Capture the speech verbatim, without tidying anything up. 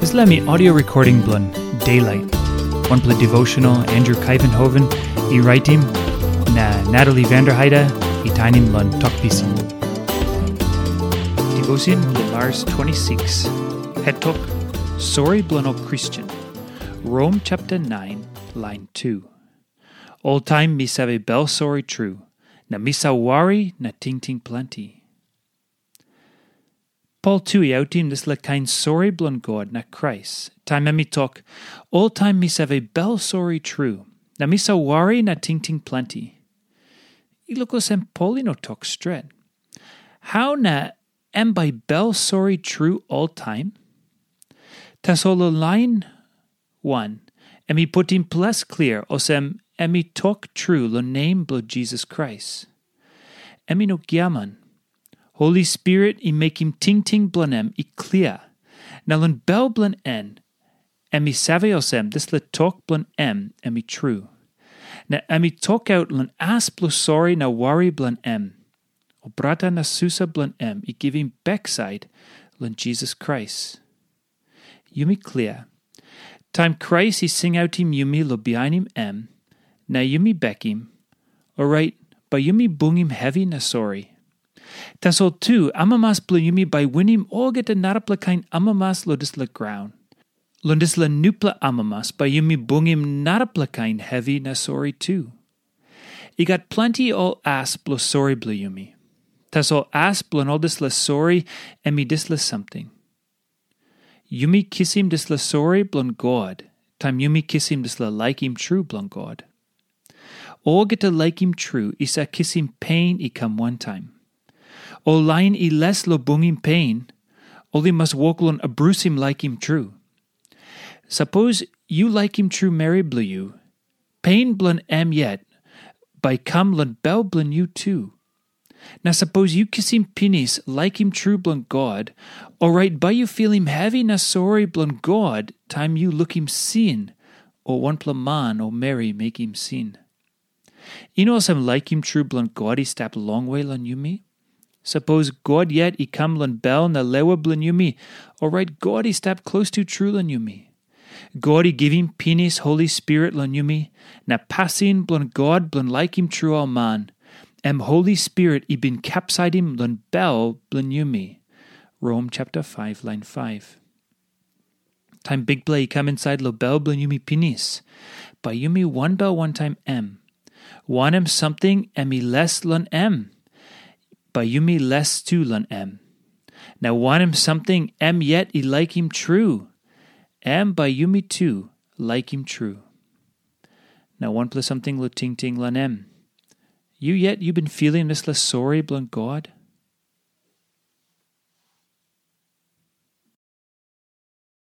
Dispela mi audio recording bilong Daylight, wanpela devotional Andrew Kaivenhoven i raitim, na Natalie Vanderheide i tainim long Tok Pisin. Devotion bilong Mars twenty-six, het tok, Sori bilong ol Kristen. Rom chapter nine, line two. Oltaim mi save bel sori tru, na mi save wari na tingting planti. Pol tu i autim dispela kain sori bilong God na Krais, taim em i tok, "Oltaim mi save bel sori tru, na mi save wari na tingting planti." I luk olsem Pol i no tok stret. Hau na em bai bel sori tru oltaim? Tasol long lain wan, em i putim ples klia olsem em i tok tru long nem bilong Jisas Krais. Em i no giaman. Holi Spirit i mekim tingting bilong em i klia, na long bel bilong en, em i save olsem dispela tok bilong em em i tru. Na em i tokaut long as bilong sori na wari bilong em. Ol brata na susa bilong em i givim baksait long Jisas Krais. Yumi klia. Taim Krais i singautim yumi long bihainim em, na yumi bekim, orait bai yumi bungim hevi na sori. Tasol tu, amamas bilong yumi bai winim olgeta narapela kain amamas long dispela graun. Long dispela nupela amamas bai yumi bungim narapela kain hevi na sori tu. I gat planti ol as bilong sori bilong yumi. Tasol as bilong ol dispela sori em i dispela samting. Yumi kisim dispela sori bilong God, taim yumi kisim dispela laikim tru bilong God. Olgeta laikim tru i save kisim pen i kam wantaim. Ol lain i les long bungim pen, ol i mas wok long abrusim laikim tru. Sapos yu laikim tru meri bilong yu, pen bilong em yet bai kam long bel bilong yu tu. Na sapos yu kisim pinis laikim tru bilong God, orait bai yu filim hevi na sori bilong God taim yu lukim sin, o wanpela man o meri mekim sin. I no olsem laikim tru bilong God i stap longwe long yumi. Sapos God yet i kam long bel na lewa bilong yumi, orait God i stap klostu tru long yumi. God i givim pinis Holi Spirit long yumi, na pasin bilong God bilong laikim tru ol man, em Holi Spirit i bin kapsaitim long bel bilong yumi. Rom chapter five, line five. Taim Bikpela i kam insait long bel bilong yumi pinis, bai yumi wanbel wantaim em. Wanem samting em i les long em, bai yumi les tu long em. Na wanem samting em yet i laikim tru, em bai yumi tu laikim tru. Na wanpela samting long tingting long em. Yu yet yu bin filim dispela sori bilong God?